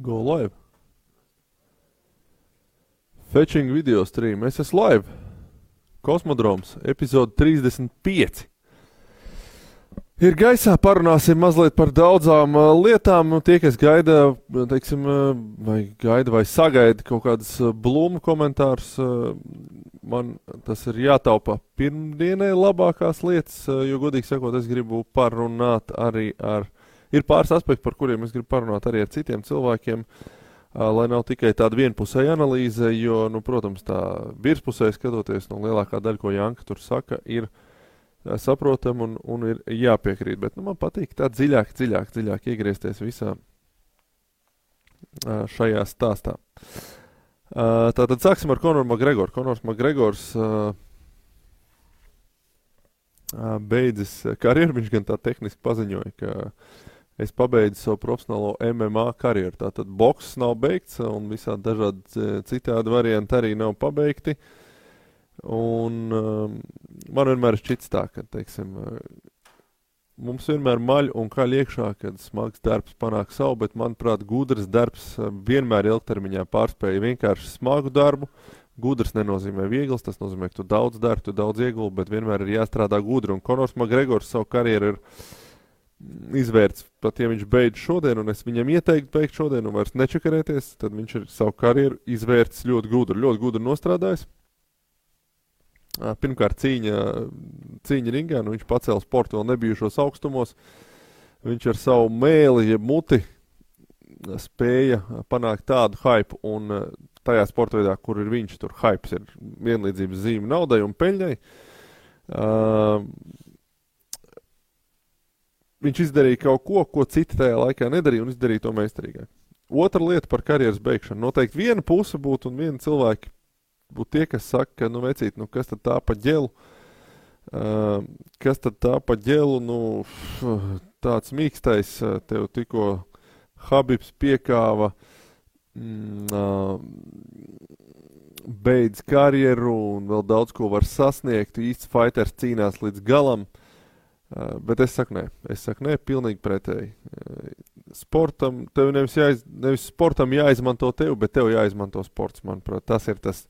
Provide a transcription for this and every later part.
Go live. Fetching video stream. Es esmu live. Kosmodroms. Epizode 35. Ir gaisā, parunāsim mazliet par daudzām lietām. Tie, kas gaida, teiksim, vai sagaida kaut kādas blūmu komentārus, man tas ir jātaupa pirmdienai labākās lietas, jo, godīgi sakot, es gribu parunāt arī ar... Ir pāris aspekti, par kuriem es gribu parunāt arī ar citiem cilvēkiem, lai nav tikai tāda vienpusēja analīze, jo, protams, tā virspusēji skatoties, lielākā daļa, ko Janka tur saka, ir saprotam un ir jāpiekrīt. Bet man patīk tā dziļāk iegriezties visā šajā stāstā. Tātad sāksim ar Konoru Makgregoru. Konors Makgregors beidzis karjeru, viņš gan tā tehniski paziņoja, ka es pabeidzu savu profesionālo MMA karjeru. Tātad boks nav beigts un visādi dažādi citādi varianti arī nav pabeigti. Un man vienmēr šķits tā, ka, teiksim, mums vienmēr maļ un kaļ iekšā, kad smags darbs panāk savu, bet, manuprāt, gudrs darbs vienmēr ilgtermiņā pārspēja vienkārši smagu darbu. Gudrs nenozīmē viegls, tas nozīmē, ka tu daudz dari, tu daudz ieguldi, bet vienmēr ir jāstrādā gudri. Un Konors Makgregors savu karjeru ir izvērts, pat ja viņš beidz šodien, un es viņam ieteiktu beigt šodien un vairs nečakarēties, tad viņš ir savu karjeru izvērts ļoti gudri nostrādājis. Pirmkārt cīņa ringā, viņš pacēla sportu vēl nebijušos augstumos. Viņš ar savu mēli, jeb muti spēja panākt tādu hype, un tajā sporta veidā, kur ir viņš, tur hypes ir vienlīdzības zīme naudai un peļņai. Viņš izdarīja kaut ko citi tajā laikā nedarīja, un izdarīja to meistarīgāk. Otra lieta par karjeras beigšanu. Noteikti viena puse būtu un viena cilvēki būtu tie, kas saka, ka, vecīt, kas tad tā pa ģelu? Kas tad tā pa ģelu? Tāds mīkstais, tev tikko Habibs piekāva, beidz karjeru un vēl daudz ko var sasniegt. Īsts fighters cīnās līdz galam. Bet es saku nē, pilnīgi pretēji. Sportam, tev nevis sportam jāizmanto tev, bet tev jāizmanto sports, manuprāt. Tas ir tas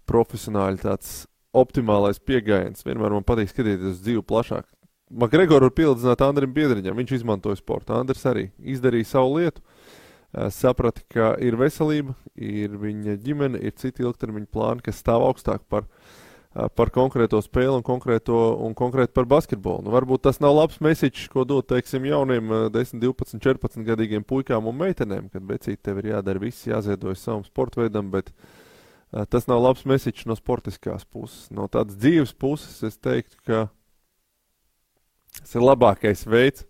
profesionāli tāds optimālais pieejams. Vienmēr man patīk skatīties uz dzīvi plašāk. Makgregoru var pielīdzināt Andrim Biedriņam, viņš izmantoja sportu. Andris arī izdarīja savu lietu, saprata, ka ir veselība, ir viņa ģimene, ir citi ilgtermiņa plāni, kas stāv augstāk par konkrēto spēli un konkrēti par basketbolu. Varbūt tas nav labs message, ko dot, teiksim, jauniem 10, 12, 14 gadīgiem puikām un meitenēm, kad becīt tev ir jādara viss, jāziedojas savam sportveidam, bet tas nav labs message no sportiskās puses. No tādas dzīves puses es teiktu, ka tas ir labākais veids,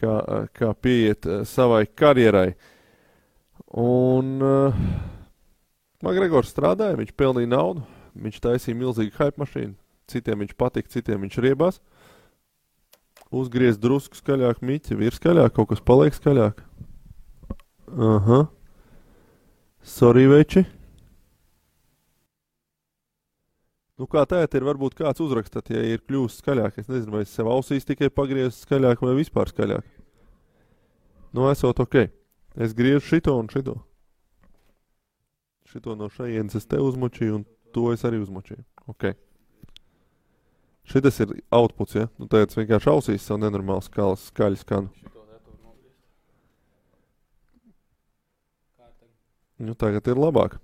kā pieiet savai karjerai. Un Makgregors strādāja, viņš pelnīja naudu. Viņš taisīja milzīgu hype mašīnu, citiem viņš patika, citiem viņš riebās. Uzgriez drusku skaļāk miķi, ir skaļāk, kaut kas paliek skaļāk. Aha. Sorry, veči. Kā tēt ir, varbūt kāds uzrakstat, ja ir kļūst skaļāk. Es nezinu, vai es sev ausīs tikai pagriezu skaļāk vai vispār skaļāk. Esot ok. Es griežu šito un šito. Šito no šajienes es te uzmučīju un to es arī uzmočīju. Ok. Šitas ir outputs, ja? Tagad es vienkārši ausīs savu nenormālu skaļu skanu. Tagad ir labāk.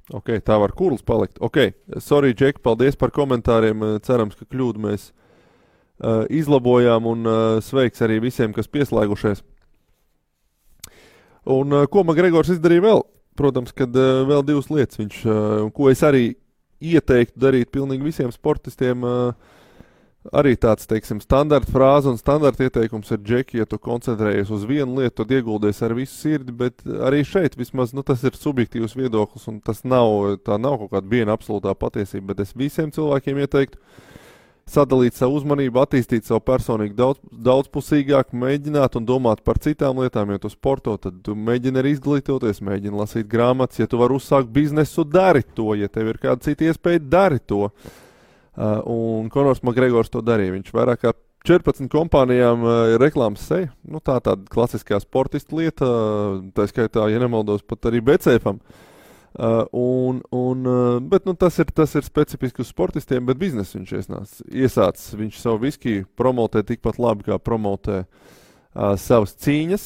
Ok, tā var kurls palikt. Ok, sorry, Džek, paldies par komentāriem. Cerams, ka kļūdu mēs izlabojām un sveiks arī visiem, kas pieslēgušies. Un ko Makgregors izdarīja vēl? Protams, kad vēl divas lietas viņš, ko es arī ieteiktu darīt pilnīgi visiem sportistiem, arī tāds, teiksim, standarta frāze un standarta ieteikums ir, Džeki, ja tu koncentrējies uz vienu lietu, tad ieguldies ar visu sirdi, bet arī šeit vismaz, tas ir subjektīvs viedoklis un tā nav kaut kāda viena absolūtā patiesība, bet es visiem cilvēkiem ieteiktu sadalīt savu uzmanību, attīstīt savu personīgi daudzpusīgāk, mēģināt un domāt par citām lietām. Ja tu sporto, tad tu mēģini arī izglītoties, mēģini lasīt grāmatas. Ja tu vari uzsākt biznesu, dari to. Ja tev ir kāda cita iespēja, dari to. Un Konors Makgregors to darīja. Viņš vairāk kā 14 kompānijām ir reklāmas seja. Nu, tāda klasiskā sportista lieta, tā skaitā, ja nemaldos, pat arī BCF-am. Bet tas ir specifiski uz sportistiem, bet biznesu viņš iesācis. Viņš savu viskiju promotē tikpat labi, kā promotē savas cīņas.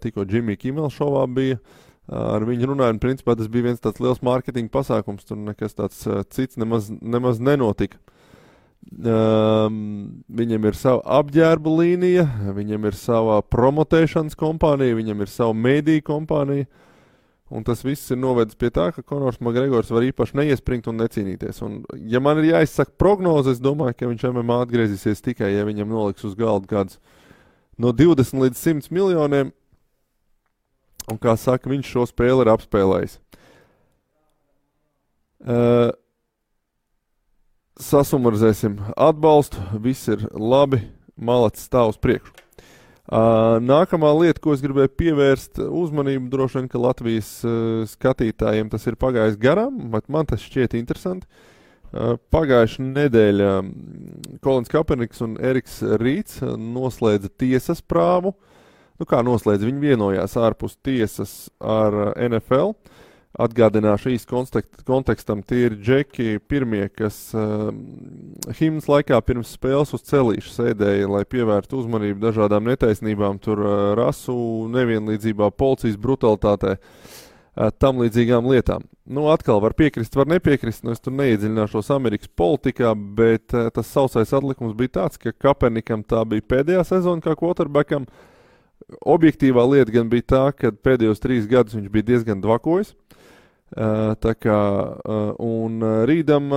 Tikko Jimmy Kimmel šovā bija. Ar viņu runāju, un principā tas bija viens tāds liels mārketinga pasākums. Tur nekas tāds cits nemaz nenotika. Viņam ir sava apģērba līnija, viņam ir sava promotēšanas kompānija, viņam ir sava mēdīja kompānija, un tas viss ir novedis pie tā, ka Konors Makgregors var īpaši neiespringt un necīnīties. Un, ja man ir jāizsaka prognoze, es domāju, ka viņš MMA atgriezīsies tikai, ja viņam noliks uz galda kāds no 20 līdz 100 miljoniem, un, kā saka, viņš šo spēli ir apspēlējis. Sasumarizēsim atbalstu, viss ir labi, malacis stāv uz priekšu. Nākamā lieta, ko es gribēju pievērst uzmanību, droši vien, ka Latvijas skatītājiem tas ir pagājis garām, bet man tas šķiet interesanti. Pagājušā nedēļa Kolins Kaeperniks un Eriks Rīts noslēdza tiesas prāvu. Nu kā noslēdza, viņi vienojās ārpus tiesas ar NFL. Atgādināšu īsti kontekstam, tie ir džeki pirmie, kas himnas laikā pirms spēles uz celīšu sēdēja, lai pievērtu uzmanību dažādām netaisnībām, tur rasu nevienlīdzībā, policijas brutalitātē, tam līdzīgām lietām. Nu, atkal var piekrist, var nepiekrist, es tur neiedziļināšos Amerikas politikā, bet tas sausais atlikums bija tāds, ka Kaepernikam tā bija pēdējā sezona kā quarterbackam. Objektīvā lieta gan bija tā, ka pēdējos 3 gadus viņš bija diezgan dvakojis. Un Rīdam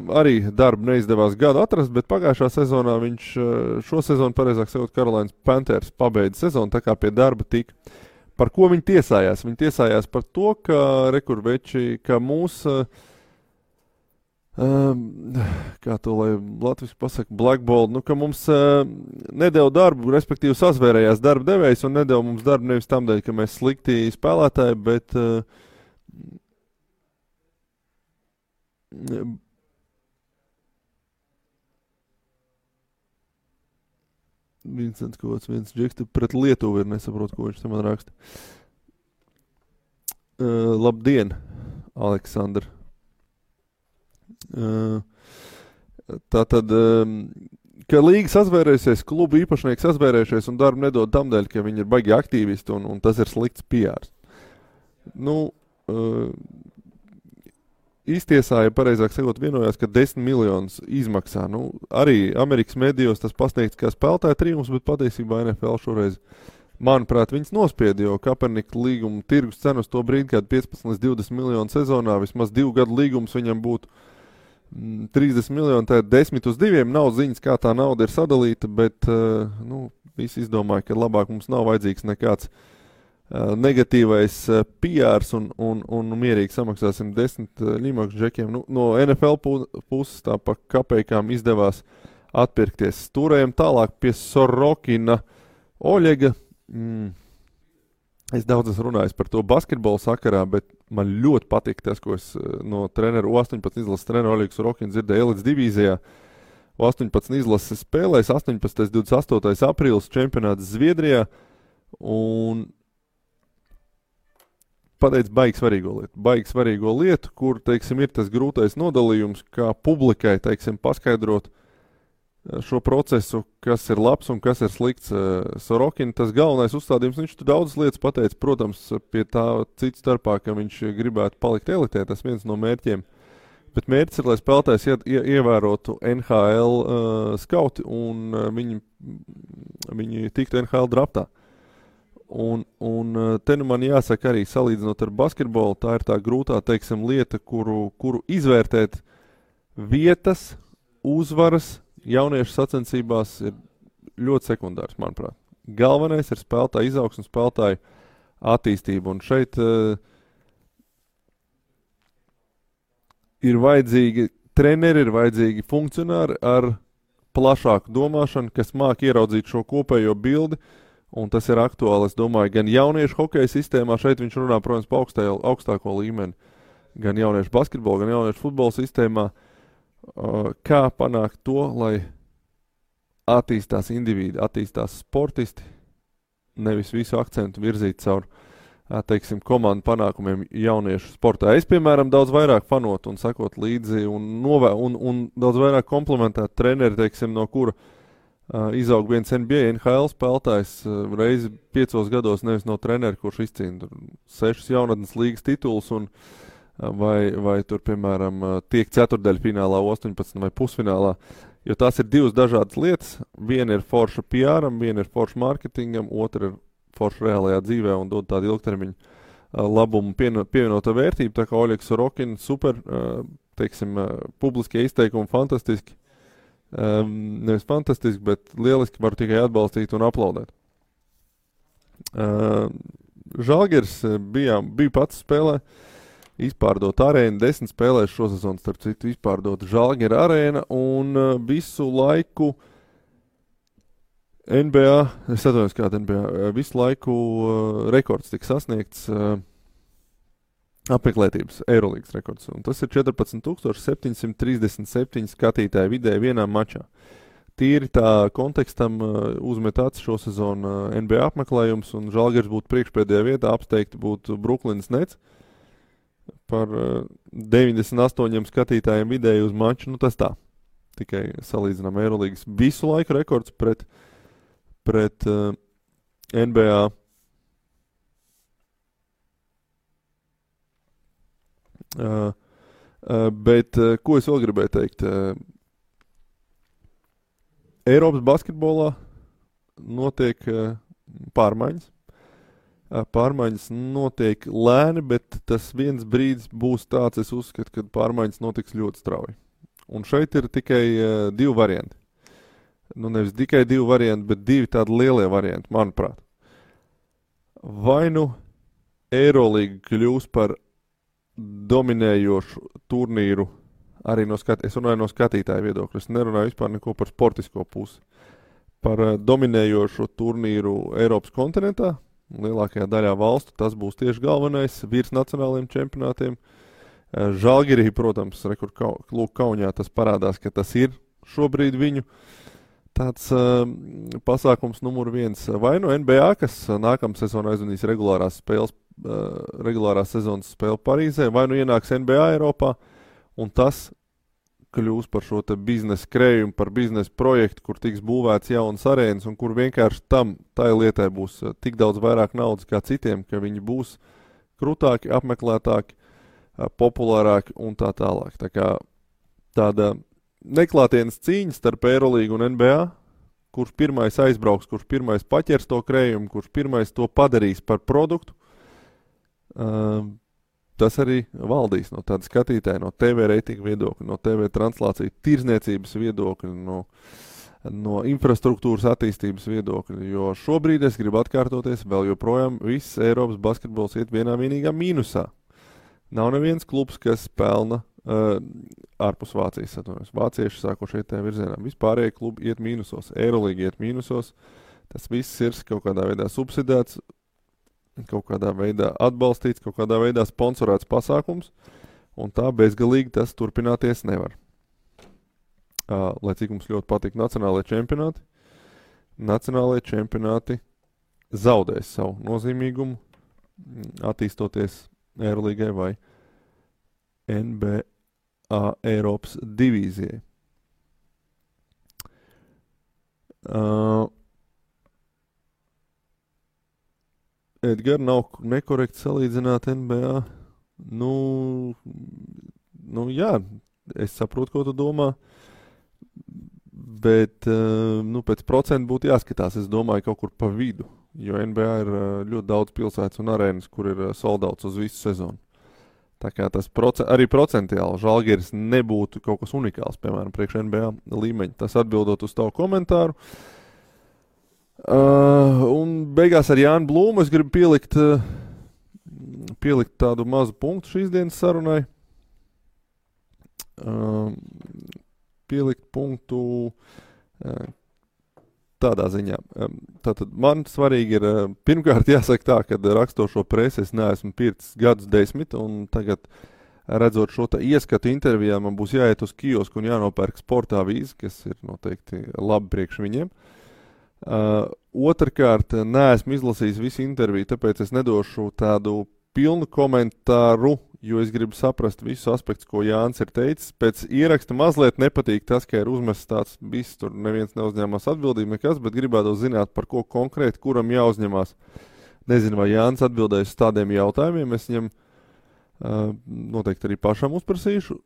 arī darbu neizdevās gadu atrast, bet pagājušā sezonā viņš šo sezonu, pareizāk sakot, Carolinas Panthers pabeidza sezonu, tā kā pie darba tika. Par ko viņi tiesājās? Viņi tiesājās par to, ka rekurveči, ka mūs, kā to lai latviski pasaka, blackball, nu, ka mums nedeva darbu, respektīvi sazvērējās darba devējs un nedeva mums darbu nevis tam dēļ, ka mēs slikti spēlētāji, bet viens džeks pret Lietuvu ir, nesaprotu, ko viņš te man raksta. Labdien, Aleksandr. Tātad, ka līga sazvērējusies, klubu īpašnieki sazvērējušies un darbu nedod tam dēļ, ka viņi ir baigi aktīvisti un tas ir slikts PRs. Nu, iztiesāja, pareizāk sakot, vienojās, ka 10 miljonus izmaksā. Nu, arī Amerikas medijos tas pasniegts kā spēlētāja trijums, bet patiesībā NFL šoreiz, manuprāt, viņas nospieda, jo Kaepernika līguma tirgus cenu uz to brīdi, kad 15 līdz 20 miljonu sezonā, vismaz 2 gadu līgums viņam būtu 30 miljoni, tā 10 uz 2, nav ziņas, kā tā nauda ir sadalīta, bet visi izdomāja, ka labāk mums nav vajadzīgs nekāds negatīvais PRs un mierīgi samaksāsim 10 ļimakšu džekiem. Nu, no NFL puses tā pa kapejkām izdevās atpirkties. Stūrējam tālāk pie Sorokina Oļega. Es daudz esmu runājis par to basketbolu sakarā, bet man ļoti patīk tas, ko es no treneru 18 izlases treneru Oļegu Sorokinu dzirdēju elites divīzijā. 18 izlases spēlēs, 18. 28. aprīlis čempionāts Zviedrijā un pateic baigi svarīgo lietu, kur, teiksim, ir tas grūtais nodalījums, kā publikai, teiksim, paskaidrot šo procesu, kas ir labs un kas ir slikts. Sorokina, tas galvenais uzstādījums, viņš tu daudzas lietas pateica, protams, pie tā cits starpā, ka viņš gribētu palikt elitē, tas viens no mērķiem. Bet mērķis ir, lai spēlētājs ievērotu NHL skauti un viņi tiktu NHL draftā. Un te nu man jāsaka arī salīdzinot ar basketbolu, tā ir tā grūtā, teiksim, lieta, kuru izvērtēt vietas, uzvaras jauniešu sacensībās ir ļoti sekundārs, manuprāt. Galvenais ir spēlētāja izaugsme, spēlētāja attīstība, un šeit ir vajadzīgi treneri, ir vajadzīgi funkcionāri ar plašāku domāšanu, kas māk ieraudzīt šo kopējo bildi. Un tas ir aktuāli, es domāju, gan jauniešu hokeja sistēmā, šeit viņš runā, protams, pa augstāko līmeni, gan jauniešu basketbola, gan jauniešu futbola sistēmā, kā panākt to, lai attīstās individi, attīstās sportisti, nevis visu akcentu virzīt caur, teiksim, komandu panākumiem jauniešu sportā. Es, piemēram, daudz vairāk fanot un sakot līdzi un daudz vairāk komplementēt treneri, teiksim, no kura izaug viens NBA, NHL spēlētājs reizi 5 gados, nevis no treneri, kurš izcīna 6 jaunatnes līgas titulus un vai tur, piemēram, tiek ceturtdaļfinālā, 18 vai pusfinālā, jo tās ir divas dažādas lietas. Viena ir forša PR-am, viena ir forša marketingam, otra ir forša reālajā dzīvē un dod tādu ilgtermiņu labumu pievienoto vērtību, tā kā Oļegs Sorokin super, teiksim, publiskie izteikumi fantastiski, nevis fantastiski, bet lieliski var tikai atbalstīt un aplaudēt. Žalgiris bija pats spēlē, izpārdot arēnu, 10 spēlēs šosezon, starp citu, izpārdot Žalgira arēna un visu laiku NBA, es atvainojos kāda NBA, visu laiku rekords tika sasniegts, apmeklētības Eirolīgas rekords, un tas ir 14,737 skatītāji vidēji vienā mačā. Tīri tā kontekstam uzmet acis šo sezonu NBA apmeklējums, un Žalgiris būtu priekšpēdējā vietā, apsteigti būtu Brooklynas Nets par 98 skatītājiem vidēji uz maču, nu tas tā. Tikai salīdzinām Eirolīgas visu laiku rekords pret NBA. Bet ko es vēl gribēju teikt? Eiropas basketbolā notiek pārmaiņas. Pārmaiņas notiek lēni, bet tas viens brīdis būs tāds, es uzskatu, ka pārmaiņas notiks ļoti strauji. Un šeit ir tikai 2 varianti. Nu, nevis tikai 2 varianti, bet 2 tādi lielie varianti, manuprāt. Vai nu Eirolīga kļūs par dominējošu turnīru arī es runāju no skatītāju viedokļa. Es nerunāju vispār neko par sportisko pusi. Par dominējošu turnīru Eiropas kontinentā, lielākajā daļā valstu, tas būs tieši galvenais virs nacionālajiem čempionātiem. Žalgirī, protams, Kaunijā tas parādās, ka tas ir šobrīd viņu tāds pasākums numur 1. Vai no NBA, kas nākamā sezonā aizvanīs regulārās sezonas spēli Parīzē, vai nu ienāks NBA Eiropā, un tas kļūs par šo te biznesa krējumu, par biznesa projektu, kur tiks būvēts jaunas arēnas, un kur vienkārši tai lietai būs tik daudz vairāk naudas kā citiem, ka viņi būs krūtāki, apmeklētāki, populārāki un tā tālāk. Tā kā tāda neklātienes cīņa starp Eirolīgu un NBA, kurš pirmais aizbrauks, kurš pirmais paķers to krējumu, kurš pirmais to padarīs par produktu, tas arī valdīs no tāda skatītāja, no TV reitinga viedokļa, no TV translācija tirzniecības viedokļa, no infrastruktūras attīstības viedokļa, jo šobrīd es gribu atkārtoties, vēl joprojām viss Eiropas basketbols iet vienā vienīgā mīnusā. Nav neviens klubs, kas pelna ārpus Vācijas, atvainojos. Vācieši sākoši iet tajā virzienā. Vispārējie klubi iet mīnusos, Eirolīga iet mīnusos, tas viss ir kaut kādā veidā subsidēts, kaut kādā veidā atbalstīts, kaut kādā veidā sponsorēts pasākums, un tā bezgalīgi tas turpināties nevar. Lai cik mums ļoti patīk nacionālajie čempionāti zaudēs savu nozīmīgumu, attīstoties Eirolīgai vai NBA Eiropas divīzijai. Edgar, nav nekorekti salīdzināt NBA. Nu jā, es saprotu, ko tu domā, bet pēc procentu būtu jāskatās, es domāju, kaut kur pa vidu, jo NBA ir ļoti daudz pilsētas un arēnas, kur ir soldauts uz visu sezonu. Tā kā tas arī procentuāli Žalgiris nebūtu kaut kas unikāls, piemēram, priekš NBA līmeņa. Tas atbildot uz tavu komentāru. Un beigās ar Jānu Blūmu es gribu pielikt tādu mazu punktu šīs dienas sarunai. Pielikt punktu tādā ziņā. Tātad man svarīgi ir, pirmkārt jāsaka tā, kad rakstošo presi es neesmu pircis gadus 10, un tagad redzot šo ieskatu intervijā, man būs jāiet uz kiosku un jānopērk sportā vīzi, kas ir noteikti labi priekš viņiem. Otrkārt, neesmu izlasījis visu interviju, tāpēc es nedošu tādu pilnu komentāru, jo es gribu saprast visus aspektus, ko Jānis ir teicis. Pēc ieraksta mazliet nepatīk tas, ka ir uzmests tāds viss, tur neviens neuzņēmās atbildību nekas, bet gribētu zināt, par ko konkrēti, kuram jāuzņemās. Nezinu, vai Jānis atbildēs uz tādiem jautājumiem, es viņam noteikti arī pašam uzprasīšu.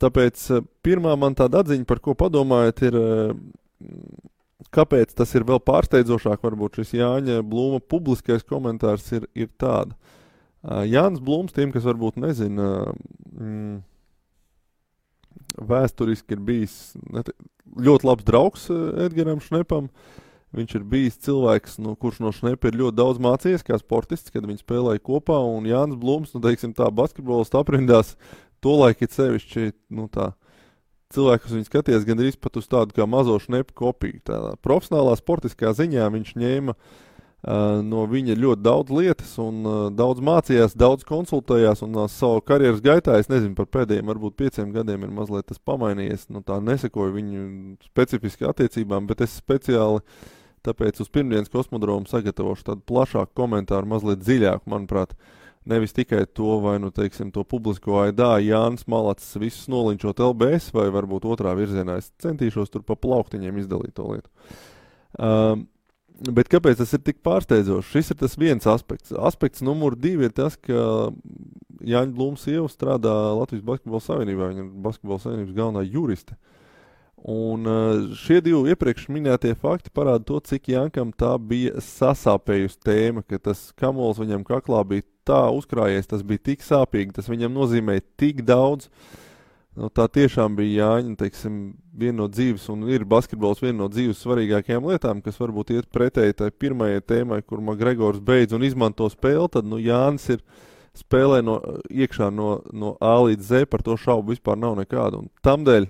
Tāpēc pirmā man tāda atziņa, par ko padomājat, ir, kāpēc tas ir vēl pārsteidzošāk, varbūt šis Jāņa Blūma publiskais komentārs ir tāda. Jānis Blūms, tiem, kas varbūt nezina, vēsturiski ir bijis ļoti labs draugs Edgaram Šnepam. Viņš ir bijis cilvēks, kurš no Šnepa ir ļoti daudz mācījies kā sportists, kad viņi spēlēja kopā, un Jānis Blūms, teiksim tā, basketbolistu aprindās, tolaik ir sevišķi, tā, cilvēki, kas viņu skaties gandrīz pat uz tādu kā mazo Šnepa kopiju. Tādā profesionālā sportiskā ziņā viņš ņēma no viņa ļoti daudz lietas un daudz mācījās, daudz konsultējās un savu karjeras gaitā, es nezinu, par pēdējiem varbūt 5 gadiem ir mazliet tas pamainījies, tā nesekoju viņu specifiski attiecībām, bet es speciāli tāpēc uz pirmdienas kosmodromu sagatavošu tādu plašāku komentāru, mazliet dziļāku, manuprāt, nevis tikai to, vai, teiksim, to publisko aidā Jānis Malacis visus nolinčot LBS, vai varbūt otrā virzienā. Es centīšos tur pa plauktiņiem izdalīt to lietu. Bet kāpēc tas ir tik pārsteidzoši? Šis ir tas viens aspekts. Aspekts numur 2 ir tas, ka Jāņa Blūma sieva strādā Latvijas Basketbola Savienībā. Viņa ir Basketbola Savienības galvenā juriste. Un šie 2 iepriekš minētie fakti parāda to, cik Jānkam tā bija sasāpējusi tēma, ka tas kamols viņam kaklā bija tā uzkrājies, tas bija tik sāpīgi, tas viņam nozīmēja tik daudz. Tā tiešām bija Jāņa, teiksim, viena no dzīves, un ir basketbols viena no dzīves svarīgākajām lietām, kas varbūt iet pretēji tai pirmajai tēmai, kur McGregors beidz un izmanto spēli, tad, Jānis ir spēlē iekšā no A līdz Z, par to šaubu vispār nav nekāda. Un tamdēļ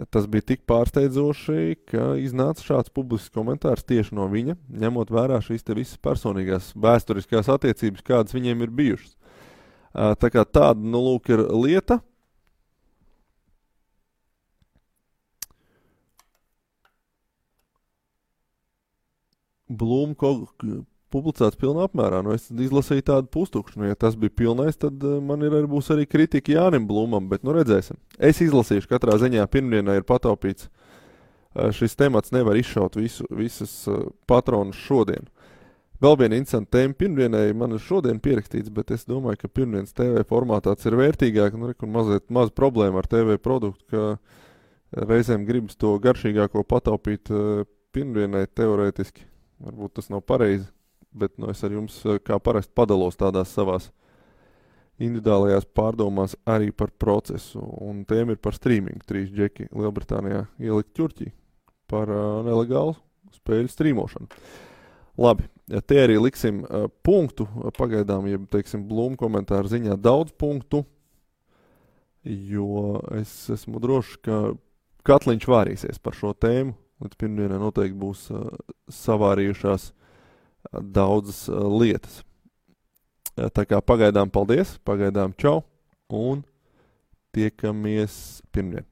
tas bija tik pārsteidzoši, ka iznāca šāds publisks komentārs tieši no viņa, ņemot vērā šīs te visas personīgās vēsturiskās attiecības, kādas viņiem ir bijušas. Tā kā tāda, lūk, ir lieta. Blūma publicēts pilnā apmērā. Es izlasīju tādu pustukšu. Ja tas bija pilnais, tad man būs arī kritika Jānim Blūmam, bet redzēsim. Es izlasīšu katrā ziņā. Pirmdienā ir pataupīts. Šis temats nevar izšaut visas patronus šodien. Vēl viena interesanta tēma pirmdienai man ir šodien pierakstīts, bet es domāju, ka pirmdienas TV formātā tas ir vērtīgāk. Maz problēma ar TV produktu, ka reizēm gribas to garšīgāko pataupīt pirmdienai teorētiski. Varbūt tas nav pareizi, bet es ar jums kā parasti padalos tādās savās individuālajās pārdomās arī par procesu. Un tēma ir par streamingu. 3 džeki Lielbritānijā ielikt ķurķī par nelegālu spēļu streamošanu. Labi, te arī liksim punktu. Pagaidām, ja teiksim Blūma komentāru ziņā daudz punktu, jo es esmu drošs, ka Katliņš vārīsies par šo tēmu. Līdz pirmdienai noteikti būs savārījušās daudzas lietas. Tā kā pagaidām paldies, pagaidām čau un tiekamies pirmdien.